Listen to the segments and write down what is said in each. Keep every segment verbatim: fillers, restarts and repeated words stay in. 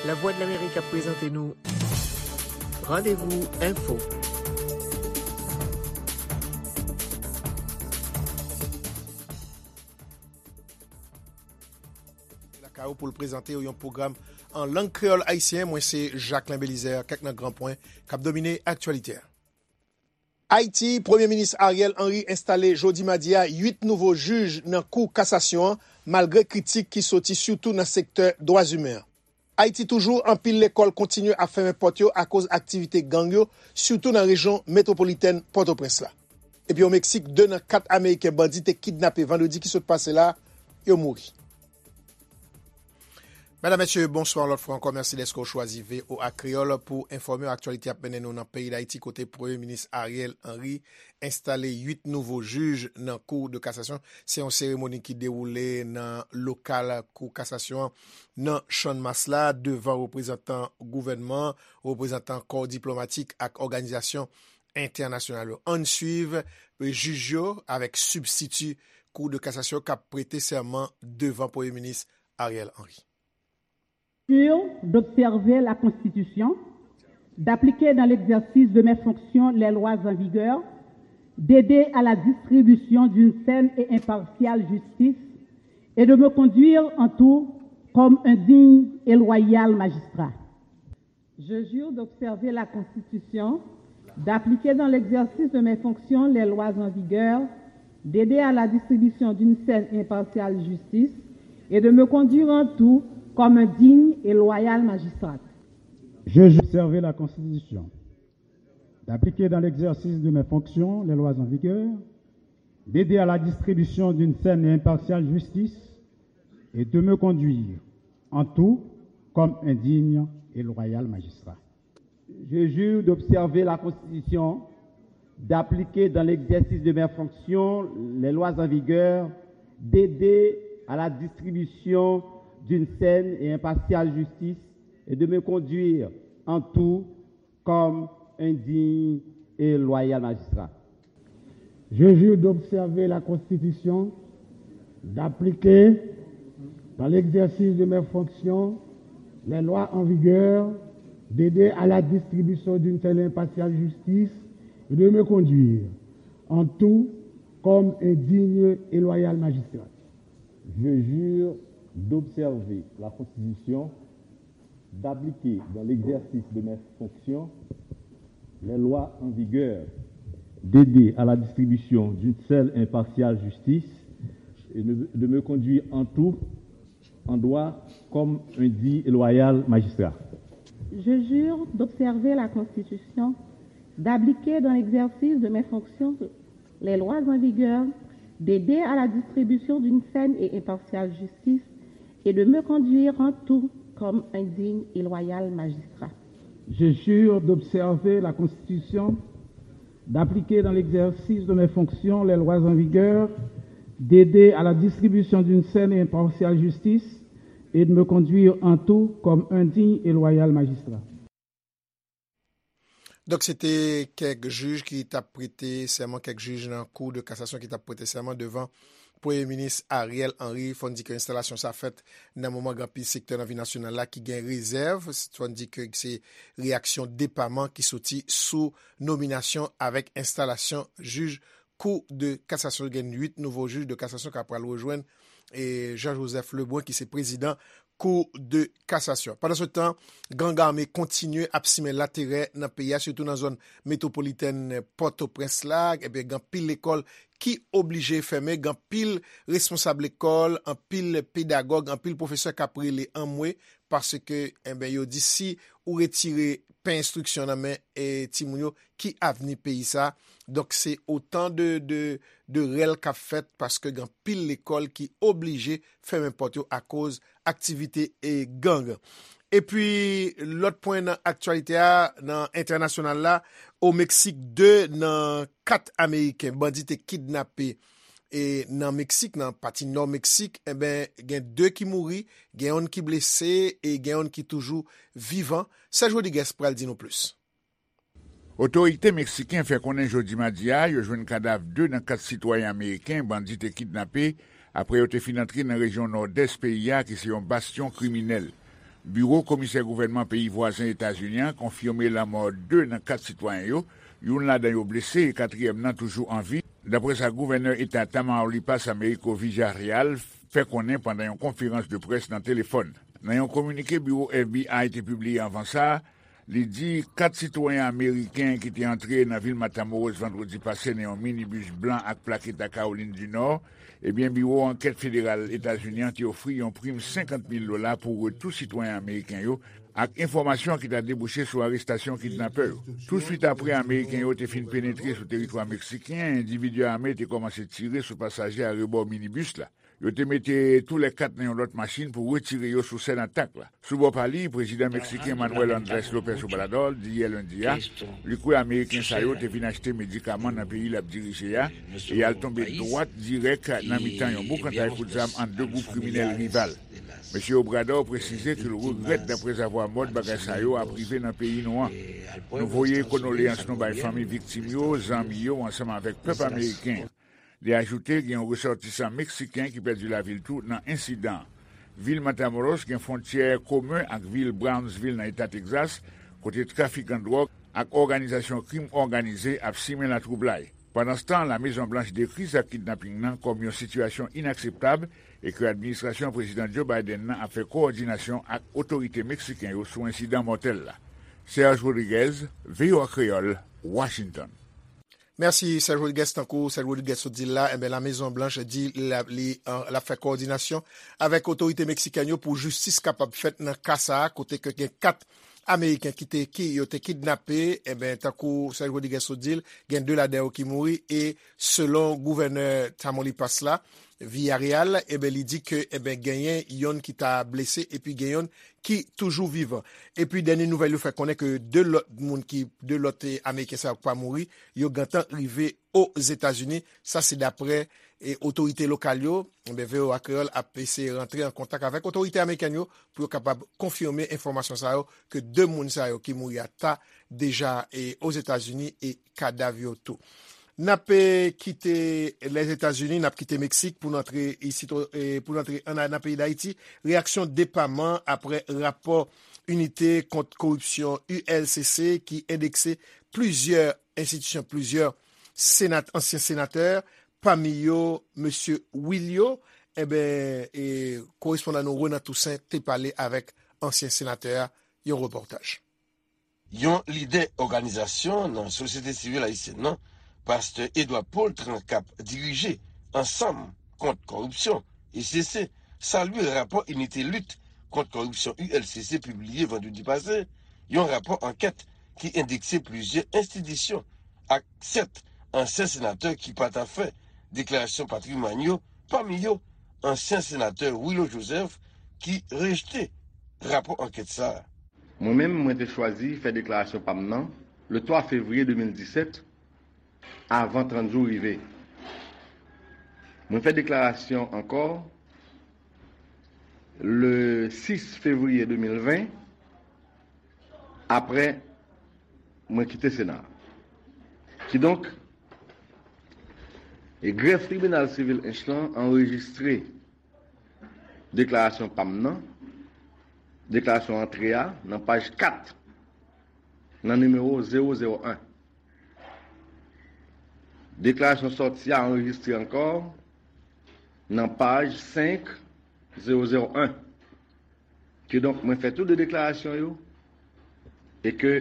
Lavwadlamerik ap prezante nou Randevou Enfo. Lakay ou pou l prezante w yon pwogram an lang kreyòl ayisyen. Mwen se Jacquelin Belizaire. Kèk nan gran pwen k ap domine aktyalite a. Ayiti, Premye Minis Ariel Henry enstale jodi madi a uit nouvo jij nan Kou Kasasyon an, malgre kritik ki soti sitou nan sektè dwa imen an. Ayiti toujou, anpil lekòl kontinye ap fèmen pòt yo akoz aktivite gang yo, sitou nan rejyon metwopolitèn Pòtoprens la. Epi o Meksik, de nan kat Ameriken bandi te kidnape vandredi ki sot pase la, yo mouri. Medam, mesye, bonswa yon lòt fwa ankò. Mèsi dèske w chwazi V O A Kreyòl pou enfòme w. Aktyalite ap mennen nou nan peyi Dayiti, kote Premye Minis Ariel Henry enstale uit nouvo jij nan Kou de Kasasyon. Se yon seremoni ki dewoule nan lokal Kou Kasasyon an nan Channmas la, devan reprezantan gouvènman, reprezantan kò diplomatik ak òganizasyon entènasyonal yo. Ann swiv jij yo avèk sibstiti Kou de Kasasyon k ap prete sèman devan Premye Minis Ariel Henry. Sûr d'observer la Constitution, d'appliquer dans l'exercice de mes fonctions les lois en vigueur, d'aider à la distribution d'une saine et impartiale justice et de me conduire en tout comme un digne et loyal magistrat. Je jure d'observer la Constitution, d'appliquer dans l'exercice de mes fonctions les lois en vigueur, d'aider à la distribution d'une saine et impartiale justice et de me conduire en tout comme un digne et loyal magistrat. Je jure d'observer la Constitution, d'appliquer dans l'exercice de mes fonctions les lois en vigueur, d'aider à la distribution d'une saine et impartiale justice et de me conduire en tout comme un digne et loyal magistrat. Je jure d'observer la Constitution, d'appliquer dans l'exercice de mes fonctions les lois en vigueur, d'aider à la distribution d'une saine et impartiale justice et de me conduire en tout comme un digne et loyal magistrat. Je jure d'observer la Constitution, d'appliquer, dans l'exercice de mes fonctions, les lois en vigueur, d'aider à la distribution d'une saine et impartiale justice et de me conduire en tout comme un digne et loyal magistrat. Je jure d'observer la Constitution, d'appliquer dans l'exercice de mes fonctions les lois en vigueur, d'aider à la distribution d'une saine et impartiale justice et de me conduire en tout, en droit, comme un digne et loyal magistrat. Je jure d'observer la Constitution, d'appliquer dans l'exercice de mes fonctions les lois en vigueur, d'aider à la distribution d'une saine et impartiale justice et de me conduire en tout comme un digne et loyal magistrat. Je jure d'observer la Constitution, d'appliquer dans l'exercice de mes fonctions les lois en vigueur, d'aider à la distribution d'une saine et impartiale justice et de me conduire en tout comme un digne et loyal magistrat. Donk, se te kèk jij ki t ap prete sèman, kèk jij nan Kou de Kasasyon ki t ap prete sèman devan Premye Minis Ariel Henry. Fò n di ke enstalasyon sa fèt nan moman gen anpil sektè nan vi nasyonal la ki gen rezèv. Fò n di ke se reyaksyon depaman ki soti sou nominasyon avèk enstalasyon jij Kou de Kasasyon. Gen uit nouvo jij de kasasyon k ap pral rejwenn e Jean Joseph Lebrun ki se prezidan Kou de Kasasyon. Pandan se tan, gang ame kontinye ap simen laterè nan peyi a, sitou nan zòn metwopolitèn Pòtoprens la. Ebyen, gen anpil lekòl ki oblije fèmen, gen anpil responsab lekòl, anpil pedagòg, anpil pwofesè k ap rele anmwe, paske, ebyen, yo di si ou retire pen enstriksyon nan men e timoun yo, ki avni peyi sa? Donk, se otan de, de, de rèl k ap fèt paske gen anpil lekòl ki oblije fèmen pòt yo akoz aktivite e gang. Epi, lòt pwen nan aktyalite a, nan entènasyonal la, o Meksik, de nan kat Ameriken bandi te kidnape e nan Meksik, nan pati nò Meksik, enben, gen de ki mouri, gen yonn ki blese e gen yonn ki toujou vivan. Serge Rodriguez pral di nou plis. Otorite meksiken fè konnen jodi madi a yo jwenn kadav de nan kat sitwayen ameriken bandi te kidnape apre yo te fin antre nan rejyon nòdès peyi a ki se yon bastyon kriminèl. Biwo komisè gouvènman peyi vwazen Etazini an konfime lanmò de nan kat sitwayen yo, youn ladan yo blese e katriyèm nan toujou an vi, dapre sa gouvènè eta Tamaulipas Américo Villarreal fè konnen pandan yon konferans de près nan telefòn. Nan yon kominike biwo F B I te pibliye anvan sa a, li di kat sitwayen ameriken ki te antre nan vil Matamoros vandredi pase nan yon minibis blan ak plak eta Kawolin di Nò, ebyen, biwo ankèt federal Etazini an te ofri yon prim senkant mil dola pou retou sitwayen ameriken yo ak enfòmasyon ki ta debouche sou arestasyon kidnapè yo. Touswit apre Ameriken yo te fin penetre sou teritwa meksiken, endividi ame te kòmanse tire sou pasaje arebò minibis la. Yo te mete toulèkat nan yon lòt machin pou retire yo sou sèn atak la. Sou bò pa li, prezidan meksiken Manuel Andrés López Obrador di yè lendi a, li kwè Ameriken sa yo te vin achte medikaman nan peyi l ap dirije a e y al tonbe dwat dirèk nan mitan yon boukantay kout zam ant de gwoup kriminèl rival. Mesye Obrador presize ke l regrèt daprezavwa mòd bagay sa yo ap rive nan peyi nou an. Nou voye kondoleyans nou bay fanmi viktim yo, zanmi yo, ansanm avèk pèp ameriken. Li ajoute gen yon resòtisan meksiken ki pèdi lavi l tou nan ensidan an. Vil Matamoros gen fwontyè komen ak vil Brownsville nan eta Texas, kote trafikan dwòg ak òganizasyon krim òganize ap simen latwoublay. Pandanstan, Lamezon Blanch dekri zak kidnaping nan kòm yon sitiyasyon inakseptab e ke administrasyon Prezidan Joe Biden nan ap fè kowòdinasyon ak otorite meksiken yo sou ensidan mòtèl la. Serge Rodriguez, V O A Kreyòl, Washington. Mèsi, Serge Rodriguez. Tankou Serge Rodriguez sot di l la, enben, Lamezon Blanch di l ap, li, an, l ap fè kowòdinasyon avèk otorite meksikèn yo pou jistis kapab fèt nan ka sa a, kote ke gen kat Ameriken ki te, ki yo te kidnape, enben, tankou Serge Rodriguez sot di l, gen de ladan yo ki mouri, e selon gouvènè Tamaulipas la, Villarreal, enben, li di ke, enben, genyen yonn ki ta blese, epi gen yonn ki toujou vivan. Epi, dènye nouvèl yo fè konnen ke de lòt moun ki, de lòt, eh, Ameriken sa yo ki pa mouri, yo gentan rive Ozetazini. Sa se daprè, eh, otorite lokal yo. Enben, V O A Kreyòl ap eseye rantre an kontak avèk otorite amerikèn yo pou yo kapab konfime enfòmasyon sa yo ke de moun sa yo ki mouri a ta deja, eh, Ozetazini e kadav yo tou. N ap, eh, kite Lèzetazini, n ap kite Meksik pou n antre isit, eh, pou n antre an, nan peyi Dayiti. Reyaksyon depaman aprè rapò Inite kont Koripsyon, U L C C, ki endekse plizyè enstitisyon, plizyè senat-, ansyen senatè, pami yo mesye Willio. Enben, e, korespondan nou Renan Toussaint te pale avèk ansyen senatè a, yon repòtaj. Yon lidè òganizasyon nan sosyete sivil ayisyèn nan, pastè Edouard Paultre, k ap dirije Ansanm kont Kòripsyon, E C C, salye rapò Inite Lit kont Kòripsyon, U L C C, pibliye vandredi pase, yon rapò ankèt ki endekse plizyè enstitisyon ak sèt ansyen senatè ki pa ta fè deklarasyon patrimwàn yo, pami yo ansyen senatè Willo Joseph, ki rejte rapò ankèt sa a. Mwen menm, mwen te chwazi fè deklarasyon pa m nan le twa fevriye de mil disèt, avan trant jou rive. Mwen fè deklarasyon ankò le sis fevriye de mil ven, aprè mwen kite Sena a. Kidonk, e grèf tribinal sivil Ench lan anrejistre deklarasyon pa m nan, deklarasyon antre a, nan paj kat, nan nimewo zewo zewo en. Deklarasyon sòti a anrejistre ankò nan paj senk zewo zewo en. Kidonk, mwen fè tou de deklarasyon yo e ke,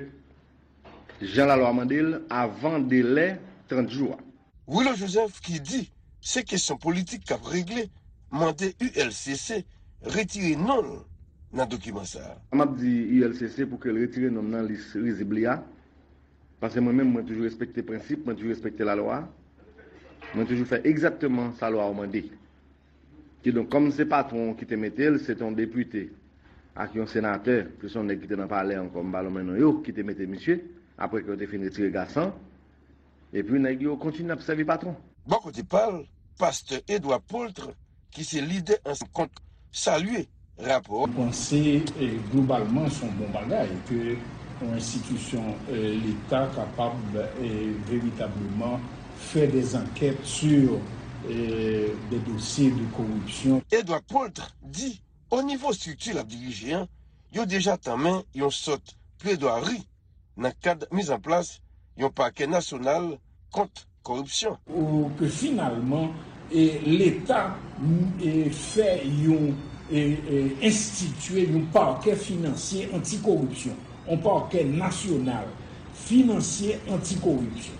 jan lalwa mande l, avan delè trant jou a. Willo Joseph, ki di se kesyon politik k ap regle, mande U L C C retire non l nan dokiman sa a. M ap di U L C C pou ke l retire non m nan lis rizib li a, paske mwen menm, mwen toujou respekte prensip, mwen toujou respekte lalwa, mwen toujou fè egzakteman sa lwa a mande. Kidonk, kòm se patwon ki te mete l, se te yon depite ak yon senatè, plis yon nèg ki te nan palè ankò, m pa lonmen non yo, ki te mete misye, apre ke yo te fin retire Gasan, epi nèg yo kontinye ap sèvi patwon. Bò kote pa l, pastè Edouard Paultre, ki se lidè Ansanm kont, salye rapò. Mwen panse, eh, globalman, se yon bon bagay ke yon enstitisyon, eh, Leta kapab, eh, veritableman fè des enquêtes sur, eh, des dossiers de corruption. Edouard Paultre di, o nivo estrikti l ap dirije an, yo deja tanmen yon sòt pledwari nan kad mizanplas yon pakè nasyonal kont kòripsyon. Ou ke finalman e, Leta e, fè yon e, e, enstitye yon pakè finansye antikoripsyon, yon pakè nasyonal finansye antikoripsyon.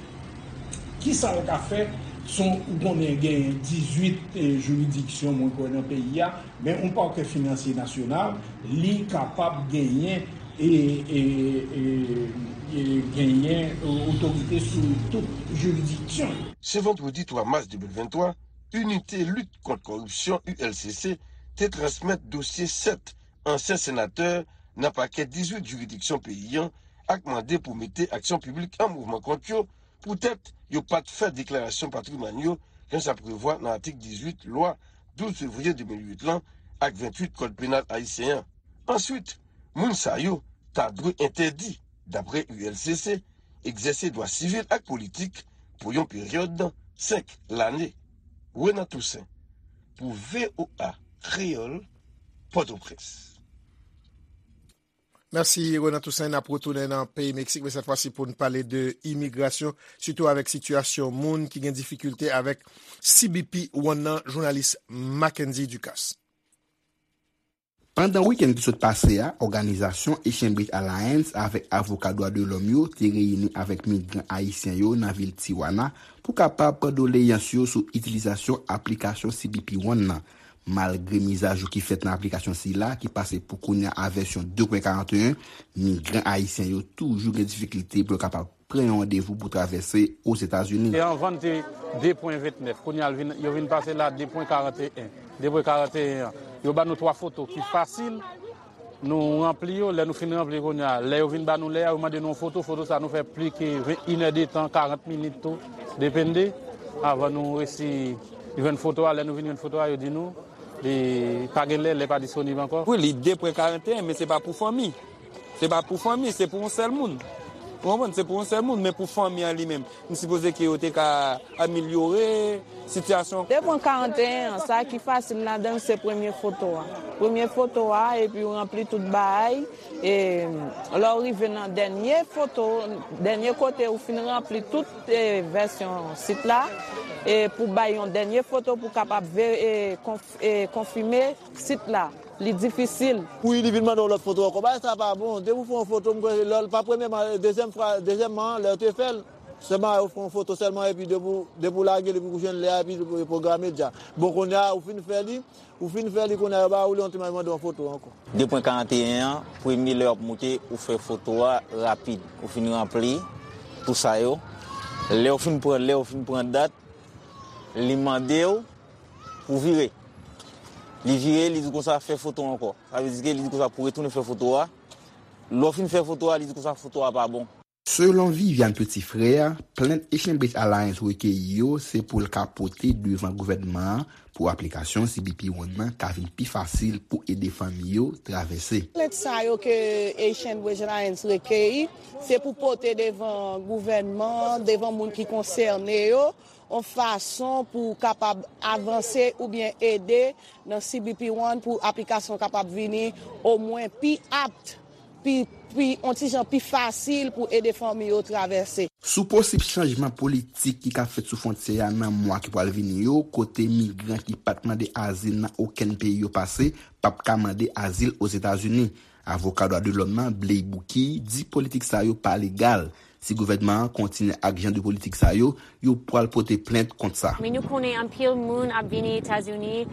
Kisa l ka fè? Son ou konnen gen dizuit e, jiridiksyon mwen kwè nan peyi a, men yon pakè finansye nasyonal li kapab genyen e, e, e, e genyen otorite sou tout jiridiksyon yo. Se vandredi twa mas de mil venntwa, Inite Lit Kont Kòripsyon, U L C C, te transmèt dosye sèt ansyen senatè nan pakè dizuit jiridiksyon peyi an ak mande pou mete aksyon piblik an mouvman kont yo poutèt yo pa t fè deklarasyon patrimwàn yo jan sa prevwa nan atik dizuit lwa douz fevriye de mil uit lan ak venntuit Kòd Penal ayisyen an. Answit, moun sa yo ta dwe entèdi, dapre U L C C, egzèse dwa sivil ak politik pou yon peryòd senk lane. Renan Toussaint, pou V O A Kreyòl, Pòtoprens. Mèsi Renan Toussaint. N ap retounen nan peyi Meksik, men sèt fwa si pou n pale de imigrasyon, sitou avèk sitiyasyon moun ki gen difikilte avèk C B P One nan, jounalis Mackendy Ducasse. Pandan wikenn ki sot pase a, òganizasyon Haitian Bridge Alliance avèk avoka dwa de lòm yo te reyini avèk migran ayisyen yo nan vil Tijuana pou kapab pran doleyans yo sou itilizasyon aplikasyon C B P One nan. Malgre mizajou ki fèt nan aplikasyon sila, ki pase pou kounye a a vèsyon de pwen karanteyen, migran ayisyen yo toujou gen difikilte pou yo kapab pran yon randevou pou travèse Ozetazini. E anvan n te de pwen ventnèf, kounye a l vin, yo vin pase l a de pwen karanteyen. De pwen karanteyen an, yo ban nou twa foto ki fasil. Nou ranpli yo, lè nou fin ranpli kounye a, lè yo vin ba nou lè a, yo mande nou yon foto, foto sa nou fè plis ke inèdtan, karant minit tou, depende, avan nou resi jwenn foto a. Lè nou vin jwenn foto a, yo di nou li pa gen lè, lè pa disponib ankò. Wi, li de pwen karanteyen, men se pa pou fanmi. Se pa pou fanmi, se pou yon sèl moun. Ou konprann? Se pou yon sèl moun, men pou fanmi an li menm. M sipoze ke yo te ka amelyore sitiyasyon. De pwen karanteyen an, sa ki fasil ladan l se premye foto a. Premye foto a, epi w ranpli tout bagay. E lè w rive nan dènye foto, dènye kote ou fin ranpli tout e, vèsyon sit la, e pou bay yon dènye foto pou kapab ve, e, konf, e, konfime sit la. Li difisil. Wi, li vin mande yon lòt foto ankò. Bagay sa pa bon. Depi w fè yon foto, m kwè lè l pa premyèman, dezyèm fwa, dezyèmman, lè w te fè l, sèlman yo fè yon foto sèlman, epi depi w, depi w lage l, epi w jwenn lè a, epi l pwograme deja. Bon, kounye a, ou fin fè li, ou fin fè li, kounye a, yo ba ou li, yon ti mande yon foto ankò. De pwen karanteyen an, premye lè w ap moute, ou fè foto a rapid. Ou fin ranpli tou sa yo. Lè w fin pran, lè w fin pran dat, li mande w pou vire. Li vire, li di konsa fè foto ankò. Sa vle di ke li di konsa pou retounen fè foto a. Lè w fin fè foto a, li di konsa foto a pa bon. Selon Viviane Petit-Frère, plent Haitian Bridge Alliance rekeyi yo se pou l ka pote devan gouvènman an pou aplikasyon C B P One nan ka vin pi fasil pou ede fanmi yo travèse. Plent sa yo ke Haitian Bridge Alliance rekeyi, se pou pote devan gouvènman an, devan moun ki konsène yo, yon fason pou kapab avanse oubyen ede nan C B P One pou aplikasyon kapab vini omwen pi apt, pi, pi, yon ti jan pi fasil pou ede fanmi yo travèse. Sou posib chanjman politik ki ka fèt sou fwontyè a nan mwa ki pral vini yo, kote migran ki pa t mande azil nan okenn peyi yo pase p ap ka mande azil Ozetazini. Avoka dwa de lòm nan, Blay Bouki, di politik sa yo pa legal. Si gouvènman an kontinye ak jan de politik sa yo, yo pral pote plent kont sa. Men nou konnen anpil moun ap vini Etazini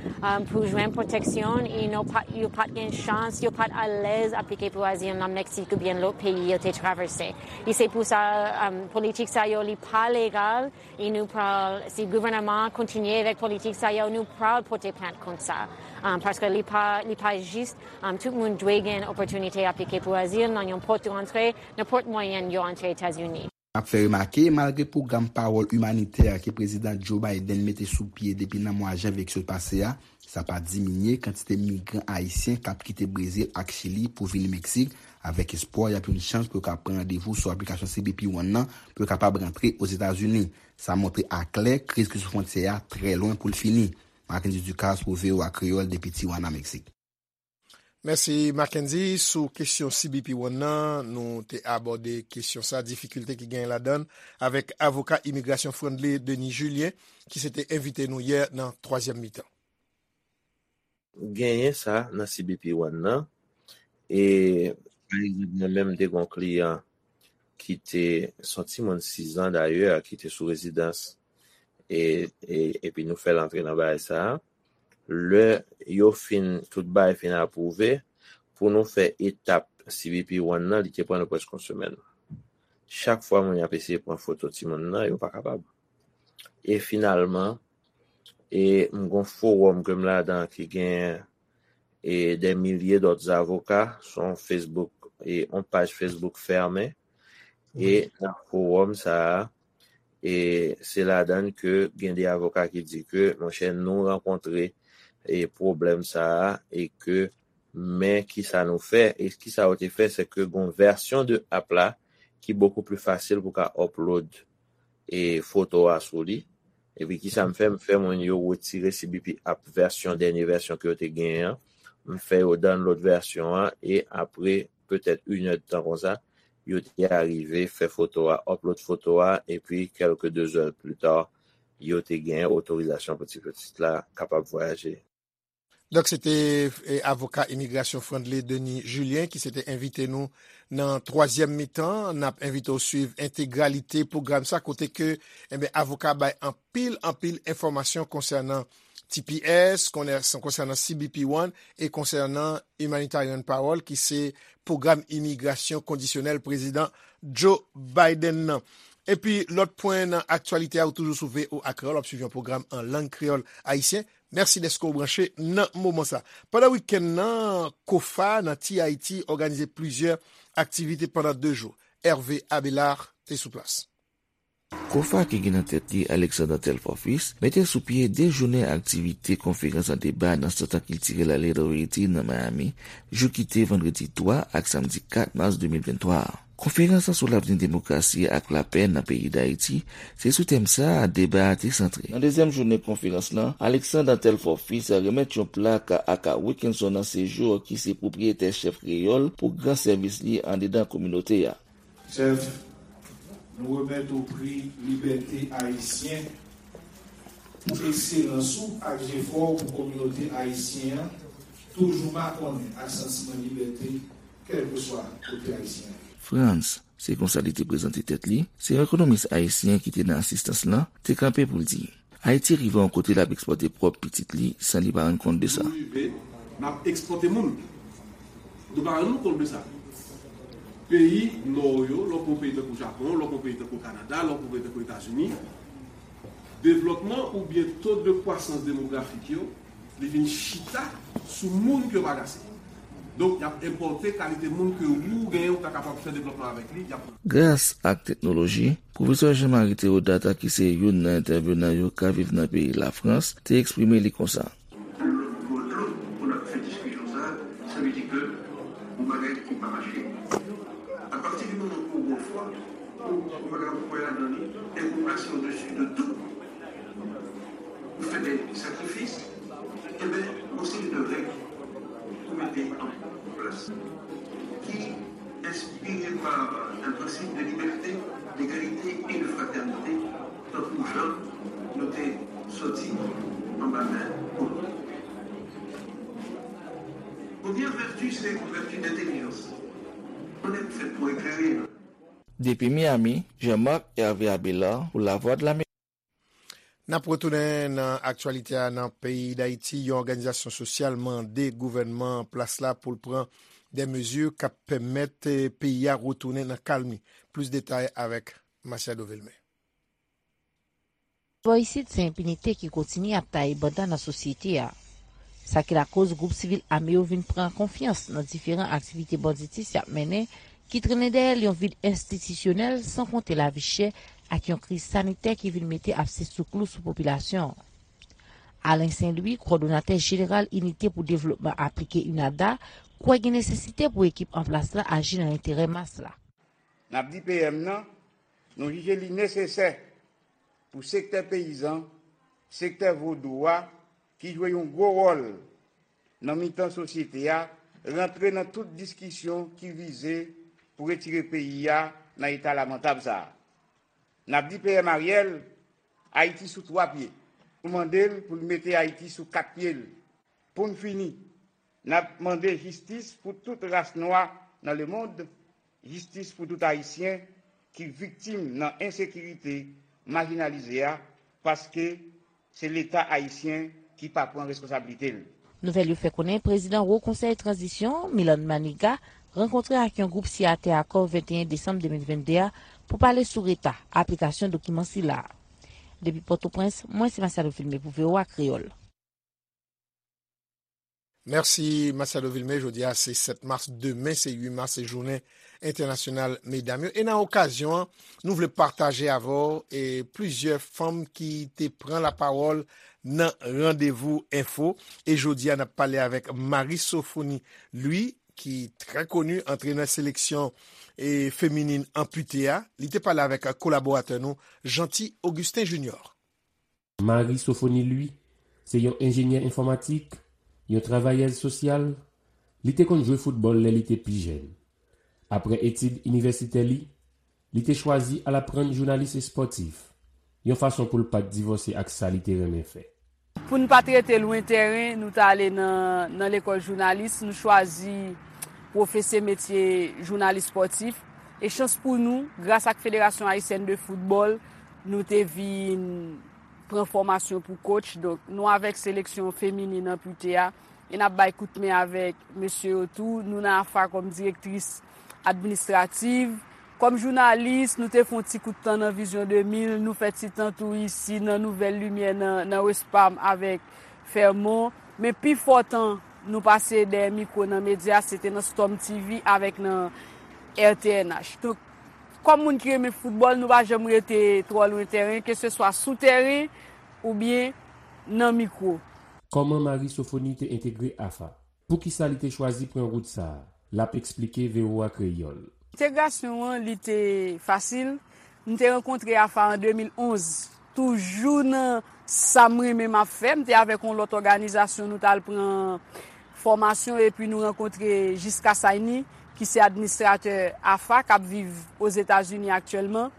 pou jwenn pwoteksyon e yo pa t gen chans, yo pa t alèz aplike pou azil nan Meksik oubyen lòt peyi yo te travèse. E se pou sa politik sa yo li pa legal. E nou pral, si gouvènman an kontinye avèk politik sa yo, nou pral pote plent kont sa. Paske li pa, li pa jis, tout moun dwe gen opòtinite aplike pou azil nan yon pòt de rantre, nenpòt mwayen yo antre Etazini. N ap fè remake, malgre pwogram pawòl imanitè ke Prezidan Joe Biden mete sou pye depi nan mwa janvye ki sot pase a, sa pa diminye kantite migran ayisyen k ap kite Brezil ak Chili pou vini Meksik, avèk espwa y ap yon chans pou yo ka pran randevou sou aplikasyon C B P One nan pou yo kapab rantre Ozetazini. Sa montre aklè kriz ki sou fwontyè a trè lwen pou l fini. Marckendy Ducasse pou V O A Kreyòl depi Tijuana, Meksik. Mèsi, Mackendy. Sou kesyon C B P One nan, nou te abòde kesyon sa, difikilte ki genyen ladan l, avèk avoka imigrasyon Frandley Denis Julien, ki se te envite nou yè nan twazyèm mitan. Genyen sa nan C B P One nan. E, pa egzanp, mwen menm, m te gen yon kliyan ki te, se yon timoun sis zan dayè, ki te sou rezidans, e, e, epi nou fè l antre nan bagay sa a. Lè yo fin, tout bagay fin apwouve, pou nou fè etap C B P One nan, li te pran nou prèske yon semèn. Chak fwa moun yo ap eseye pran foto timoun nan, yo pa kapab. E finalman, e m gon fowòm ke m ladan ki gen e dè milye dòt avoka, se yon Facebook, e yon paj Facebook fèmen, e nan fowòm sa a, e se ladan ke gen de avoka ki di ke, monchè, nou rankontre e pwoblèm sa a, e ke men kisa nou fè, e kisa yo te fè, se ke gon vèsyon de app la ki bokou pli fasil pou ka upload e foto a sou li. Epi kisa m fè, m fè moun yo retire C B P app vèsyon, dènye vèsyon ke yo te genyen an. M fè yo download vèsyon an e apre petèt inèdtan konsa, yo te arive fè foto a, upload foto a, epi kèlke dezè pli ta, yo te gen otorizasyon pou ti pitit la kapab vwayaje. Donk, se te e, avoka imigrasyon Frandley Denis Julien ki se te envite nou nan twazyèm mitan. N ap envite w swiv entegralite pwogram sa kote ke enben, avoka bay anpil, anpil enfòmasyon konsènan T P S, konsènan C B P One e konsènan Humanitarian Parole ki se pwogram imigrasyon kondisyonèl prezidan Joe Biden nan. Epi lòt pwen nan aktyalite a, ou toujou sou V O A Kreyòl, w ap swiv yon pwogram an lang kreyòl ayisyen. Mèsi dèske w branche nan moman sa. Pandan wikenn nan, kofa nan Ti Ayiti òganize plizyè aktivite pandan de jou. Hervé Abelard te sou plas. Kofa ki gen nan tèt li Alexander Telfort Fils mete sou pye de jounen aktivite konferans an deba nan Sant Kiltirèl Little Haiti nan Miami, jou ki te vandredi twa ak samdi kat mas de mil venntwa a. Konferans lan sou lavni demokrasi ak lapè nan peyi Dayiti, se sou tèm sa a deba a te santre. Nan dezyèm jounen konferans lan, Alexander Telfort Fils remèt yon plak a Aka Wilkinson nan Sejou ki se pwopriyetè Chèf Kreyòl pou gran sèvis li andedan kominote a. Chèf, nou remèt ou pri Libète Ayisyen pou ekselans ou ak jefò w pou kominote ayisyen an toujou makonnen ak santiman libète kèlkeswa kote ayisyen an ye. Frantz, se konsa li te prezante tèt li, se yon ekonomis ayisyen ki te nan asistans lan, te kanpe pou l di, Ayiti rive yon kote l ap ekspòte pwòp pitit li san li pa rann kont de sa. Nou rive, n ap ekspòte moun. Nou pa rann nou kont de sa. Peyi Nò yo, lè w pran yon peyi tankou Japon, lè w pran yon peyi tankou Kanada, lè w pran yon peyi tankou Etazini, devlòpman oubyen to de kwasans demografik yo, li vin chita sou moun ke yo pa gase. Donk, y ap enpòte kalite moun ke ou genyen ou ta kapab fè devlòpman avèk li, y ap. Gras ak teknoloji, Pwofesè Jean Marie Théodat, ki se youn nan entèvenan yo ka viv nan peyi Lafrans, te eksprime li konsa. Lòt bò dlo, pou n ap fè diskisyon sa a, sa vle di ke yon bagay ki pa mache. Apati di moman ke w gen fwa, ou, ou pa ka kwè ladan li, e ou plase odesi de tout, ou fè de sakrifis, enben, gon seri de règ pou mete an plas ki enspire pa un principe de liberté, d'égalité et de fraternité, tankou jan nou te soti anba men kolon. Premyè vèti se yon vèti dentèlijans. Mwen menm fèt pou eklere. Depi Miami, Jean-Marc Hervé Abélard pou Lavwadlamerik. N ap retounen nan aktyalite a nan peyi Dayiti. Yon òganizasyon sosyal mande gouvènman an plas la pou l pran de mezi k ap pèmèt peyi a retounen nan kalmi. Plis detay avèk Masiado Vilmé. Bò isit, se enpinite ki kontinye ap taye banda nan sosyete a. Sa ki lakoz gwoup sivil ame yo vin pran konfyans nan diferan aktivite banditis y ap mennen, ki trennen dèyè l yon vid enstitisyonèl, san konte lavi chè ak yon kriz sanitè ki vin mete abse sou klou sou popilasyon an. Alain Saint Louis, kowòdonatè jeneral Inite pou Devlopman Aplike, UNADA, kwè gen nesesite pou ekip an plas la aji nan enterè mas la. N ap di P M nan, nou jije li nesesè pou sektè peyizan, sektè vodou a, ki jwe yon gwo wòl nan mitan sosyete a, rantre nan tout diskisyon ki vize pou retire peyi a nan eta lamantab sa a. N ap di P M Ariel, Ayiti sou twa pye. Nou mande l pou l mete Ayiti sou kat pye l. Pou n fini, n ap mande jistis pou tout ras nwa nan lemonn, jistis pou tout Ayisyen ki viktim nan ensekirite, majinalize a, paske se Leta ayisyen ki pa pran reskonsablite l. Nouvèl yo fè konnen prezidan Wo Konsèy Tranzisyon, Milan Maniga, rankontre ak yon gwoup siyatè akò venteyen desanm de mil vennde a pou pale sou reta aplikasyon dokiman sila a. Depi Pòtoprens, mwen se Masiado Vilmé pou V O A Kreyòl. Mèsi Masiado Vilmé. Jodi a se sèt mas, demen se uit mas, se jounen entènasyonal medam yo. E nan okazyon an, nou vle pataje avè w e plizyè fanm ki te pran lapawòl nan Randevou Enfo. E jodi a, n ap pale avèk Marie Sophonie Louis, ki trè koni, antrenè seleksyon e feminin anpite a. Li te pale avèk kolaboratè nou, Jeanty Augustin Junior. Marie Sophonie Louis se yon enjenyè enfòmatik, yon travayèz sosyal. Li te konn jwe foutbòl lè li te pi jèn. Apre etid inivèsitè li, li te chwazi al aprann jounalis espòtif, yon fason pou l pa t divòse ak sa li te renmen fè. Pou n pa t rete lwen tèren, nou t ale nan, nan lekòl jounalis, nou chwazi pwofese metye jounalis espòtif. E chans pou nou, gras ak Federasyon Ayisyèn de Foutbòl, nou te vin pran fòmasyon pou coach. Donk, nou avèk seleksyon feminin anpite a, e n ap bay kout men avèk mesye yo tou. Nou nan AFA kòm direktris administrativ. Kòm jounalis, nou te fè yon ti kout tan nan Vizyon de mil, nou fè ti tan tou isi nan Nouvèl Limyè nan, nan West Palm avèk Fèmon. Men pi fò tan nou pase dèyè mikwo nan medya, se te nan Storm T V avèk nan R T N H. Donk, kòm moun ki renmen foutbòl, nou pa janm rete twò lwen tèren, keseswa sou tèren oubyen nan mikwo. Kòman Marie Sophonie te entegre AFA? Poukisa li te chwazi pran wout sa a? L ap eksplike V O A Kreyòl. Entegrasyon an, li te fasil. M te rankontre AFA an de mil onz. Toujou nan sa m renmen m ap fè, m te avèk yon lòt òganizasyon, nou t al pran fòmasyon epi nou rankontre Jiska Saini, ki se administratè AFA, k ap viv Ozetazini aktyèlman.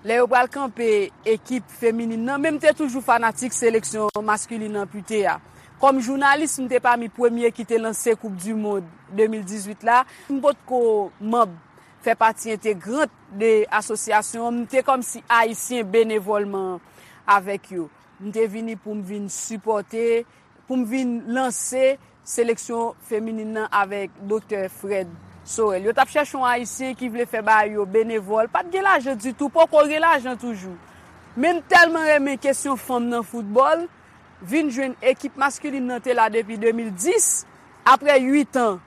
Lè yo pral kanpe ekip feminin nan, men m te toujou fanatik seleksyon maskilin anpite a. Kòm jounalis, m te pami premye ki te lanse Koup di Mond de mil dizuit la. M potko manm, fè pati entegrant de asosyasyon an, m te kòmsi ayisyen benevòlman avèk yo. M te vini pou m vin sipòte, pou m vin lanse seleksyon feminin nan avèk Doktè Fred Sorel. Yo t ap chèche yon ayisyen ki vle fè bagay yo benevòl. Pa t gen lajan ditou, poko gen lajan toujou. Men m tèlman renmen kesyon fanm nan foutbòl, vin jwenn ekip maskilin nan te la depi de mil dis, apre uit an,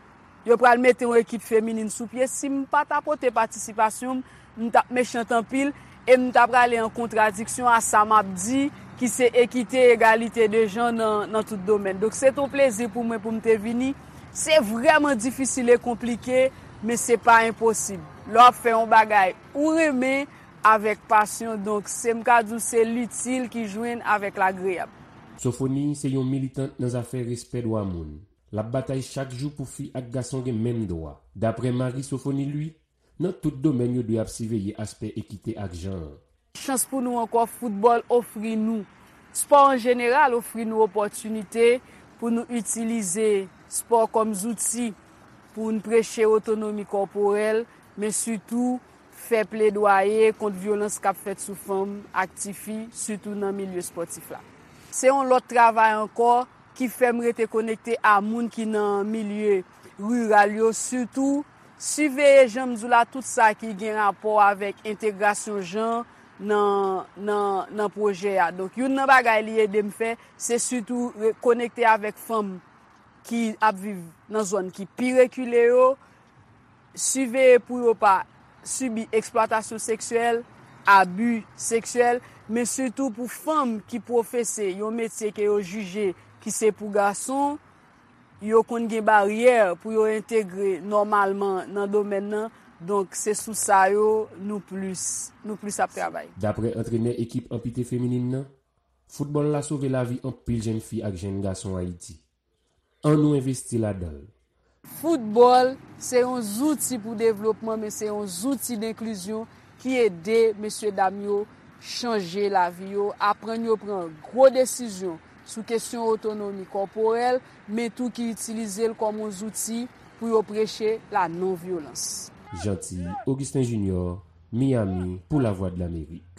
yo pral mete yon ekip feminin sou pye. Si m pa ta pote patisipasyon m, m t ap mechant anpil e m ta prale an kontradiksyon a sa m ap di, ki se ekite, egalite de jan nan, nan tout domèn. Donk, se t on plezi pou mwen pou m te vini. Se vrèman difisil e konplike, men se pa enposib. Lè w ap fè yon bagay ou renmen avèk pasyon, donk, se m ka di w se litil ki jwenn avèk lagreyab. Sophonie se yon militant nan zafè respè dwa moun. L ap batay chak jou pou fi ak gason gen menm dwa. Daprè Marie Sophonie Louis, nan tout domèn yo dwe ap siveye aspè ekite ak jan an. Chans pou nou ankò, foutbòl ofri nou, spò an jeneral ofri nou opòtinite pou nou itilize spò kòm zouti pou n preche otonomi kòporèl, men sitou fè pledwaye kont vyolans k ap fèt sou fanm ak tifi, sitou nan milye espòtif la. Se yon lòt travay ankò ki fè m rete konekte a moun ki nan milye riral yo, sitou siveye, jan m di w la, tout sa ki gen rapò avèk entegrasyon jan nan, nan, nan pwojè a. Donk, youn nan bagay li ede m fè, se sitou re-, konekte avèk fanm ki ap viv nan zòn ki pi rekile yo, siveye pou yo pa sibi eksplwatasyon seksyèl, abi seksyèl, men sitou pou fanm ki pwofese yon metye ke yo jije ki se pou gason, yo konn gen baryè pou yo entegre nòmalman nan domèn nan. Donk, se sou sa yo nou plis, nou plis ap travay. Daprè antrenè ekip anpite feminin nan, foutbòl la sove lavi anpil jèn fi ak jèn gason Ayiti. Ann nou envesti ladan l. Foutbòl se yon zouti pou devlopman, men se yon zouti denklizyon ki ede mesye dam yo chanje lavi yo, aprann yo pran gwo desizyon sou kesyon otonomi kòporèl, men tou ki itilize l kòm yon zouti pou yo preche la non vyolans. Jeanty Augustin Junior, Miami, pou Lavwadlamerik.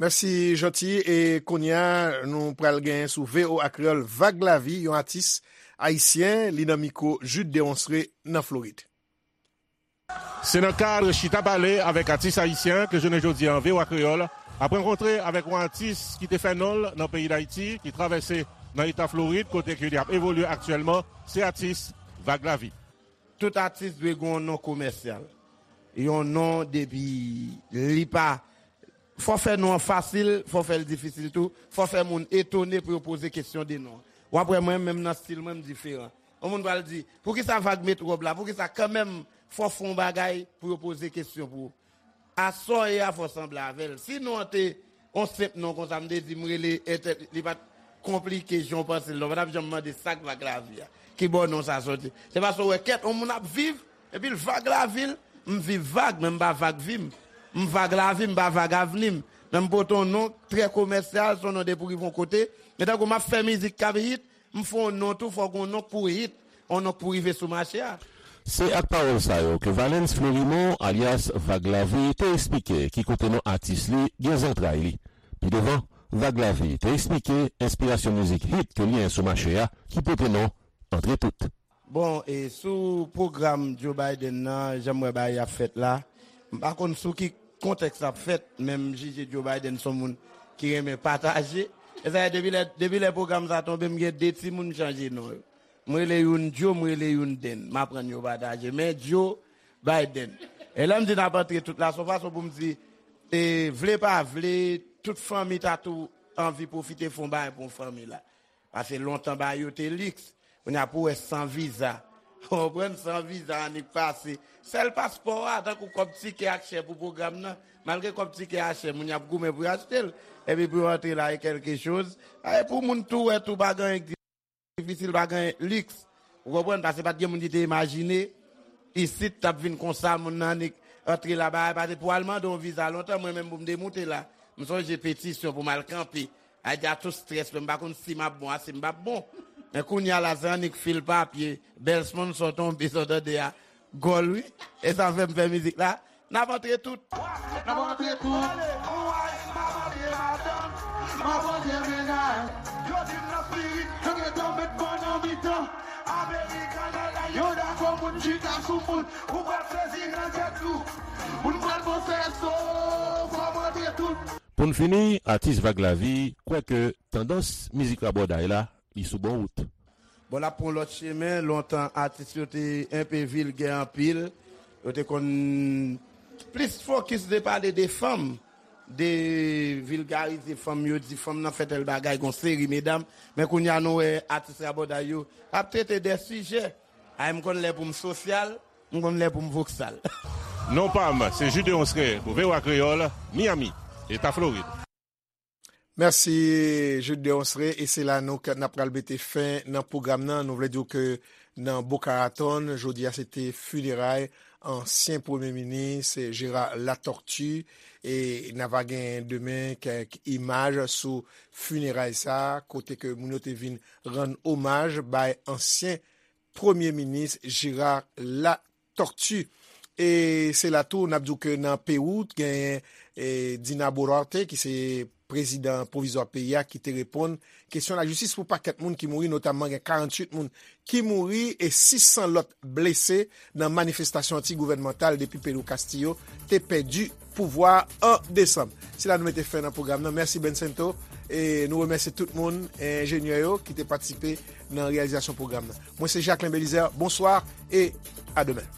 Mèsi Jeanty. E kounye a, nou pral gen sou V O A Kreyòl Vag Lavi, yon atis ayisyen, li nan mikwo Jude Deronceray nan Florid. Se nan kad chita pale avèk atis ayisyen ke jounen jodi a V O A Kreyòl ap rankontre avèk yon atis ki te fè non l nan peyi Dayiti, ki travèse nan eta Florid, kote ke li ap evolye aktyèlman, se atis Vag Lavi. Tout atis dwe gen yon non komèsyal. Yon non depi li pa Fò fè non an fasil, fò fè l difisil tou, fò fè moun etone pou yo poze kesyon de non an. W ap wè mwen menm nan stil mwen m diferan. Yon moun pral di, poukisa Vag met wòb la, poukisa kanmenm fò w fè yon bagay pou yo poze kesyon pou ou. A sa w ye a fò w sanble avè l. Si non an te yon senp non konsa m te di m rele entèl, li pa t konplike jan w panse l non, w pa t ap janm mande sa k Vag Lavi a. Kibò non sa soti? Se paske w wè kèt yon moun ap viv, epi l Vag Lavi l, m viv Vag, men m pa Vag vi m. M Vag Lavi, m pa Vag Avni m. Men m pote yon non trè komèsyal, se yon non depi w rive yon kote. Men tankou m ap fè mizik k ap hit, m fè yon non tou, fòk yon non k pou hit, yon non k pou rive sou mache a. Se ak pawòl sa yo ke Valens Florimond, alyas Vag Lavi, te eksplike ki kote non atis li gen zantray li. Pi devan, Vag Lavi te eksplike enspirasyon mizik hit ke li gen sou mache a ki pote non Antre Tout. Bon, e sou pwogram Joe Biden nan, jan m wè bagay ap fèt la, m pa konn sou ki kontèks l ap fèt, men m jije Joe Biden se yon moun ki renmen pataje. E sa fè depi lè, depi lè pwogram sa tonbe, m gen de timoun m chanje non yo. M rele youn Joe, m rele youn Den. M aprann yo pataje. Men Joe Biden. E lè m di n ap antre tout la, se yon fason pou m di, e, vle pa vle, tout fanmi ta tou anvi pwofite fè yon bagay pou yon fanmi la. Paske lontan bagay yo te liks. Kounye a pou w wè san viza. Ou konprann? San viza annik pase. Sèl paspò a, tankou kòb tikè a k chè pou pwogram nan. Malgre kòb tikè a chè, moun yo ap goumen pou yo achte l. Epi pou yo antre la e kèlke choz. E pou moun tou wè tou pa gen anyen k difisil, pa gen liks. Ou konprann? Paske pa t gen moun ki te imajine isit t ap vin konsa, moun nan annik antre la bagay. Paske pou al mande yon viza lontan, mwen menm pou m te moute la, m sonje petisyon pou m al kanpe. Ayiti a tou strès, men m pa konn si m ap bon a si m p ap bon. Men kounye a la, se annik fil papye, bèl sponsò tonbe, sa w tande a, gòl wi. E sa fè m fè mizik la. N ap antre tout. N ap antre tout. Ou ay, m ap antre madanm, m ap antre mennaj. Yo di m nan spirit, yo gentan met mwen nan mitan. American Airlines, yo dakò moun chita sou moun. Ou pral sezi nan tèt ou. Moun pral panse so, fò m antre tout. Pou n fini, atis Vag Lavi kwè ke tandans mizik rabòday la, li sou bon wout. Bon, l ap pran lòt chemen. Lontan, atis yo te enpe vilgè anpil. Yo te konn plis fokis de pale de fanm, de vilgarize fanm yo, di fanm nan fè tèl bagay, gon seri medam. Men kounye a, nou wè atis rabòday yo ap trete de sijè. Ay, m konn lè pou m sosyal, m konn lè pou m voksal. Non pa m, se Jude Deronceray pou V O A Kreyòl, Miami, Eta Florid. Mèsi, Jude Deronceray. E se la nou k, n ap pral mete fen nan pwogram nan. Nou vle di w ke nan Boca Raton, jodi a se te fineray ansyen premye minis Gérard Latortue. E n a va gen demen kèk imaj sou fineray sa, kote ke moun yo te vin rann omaj bay ansyen premye minis Gérard Latortue. E se la tou, n ap di w ke nan Pewou, genyen, e, Dina Boluarte, ki se prezidan pwovizwa peyi a, ki te reponn kesyon lajistis pou pakèt moun ki mouri, notamman gen karanntuit moun ki mouri e sis san lòt blese nan manifestasyon anti-gouvènmantal depi Pedro Castillo te pèdi pouvwa a an desanm. Se la nou mete fen nan pwogram nan. Mèsi Bencento. E nou remèsye tout moun, enjenyè yo ki te patisipe nan reyalizasyon pwogram nan. Mwen se Jacquelin Belizaire. Bonsoir et à demain.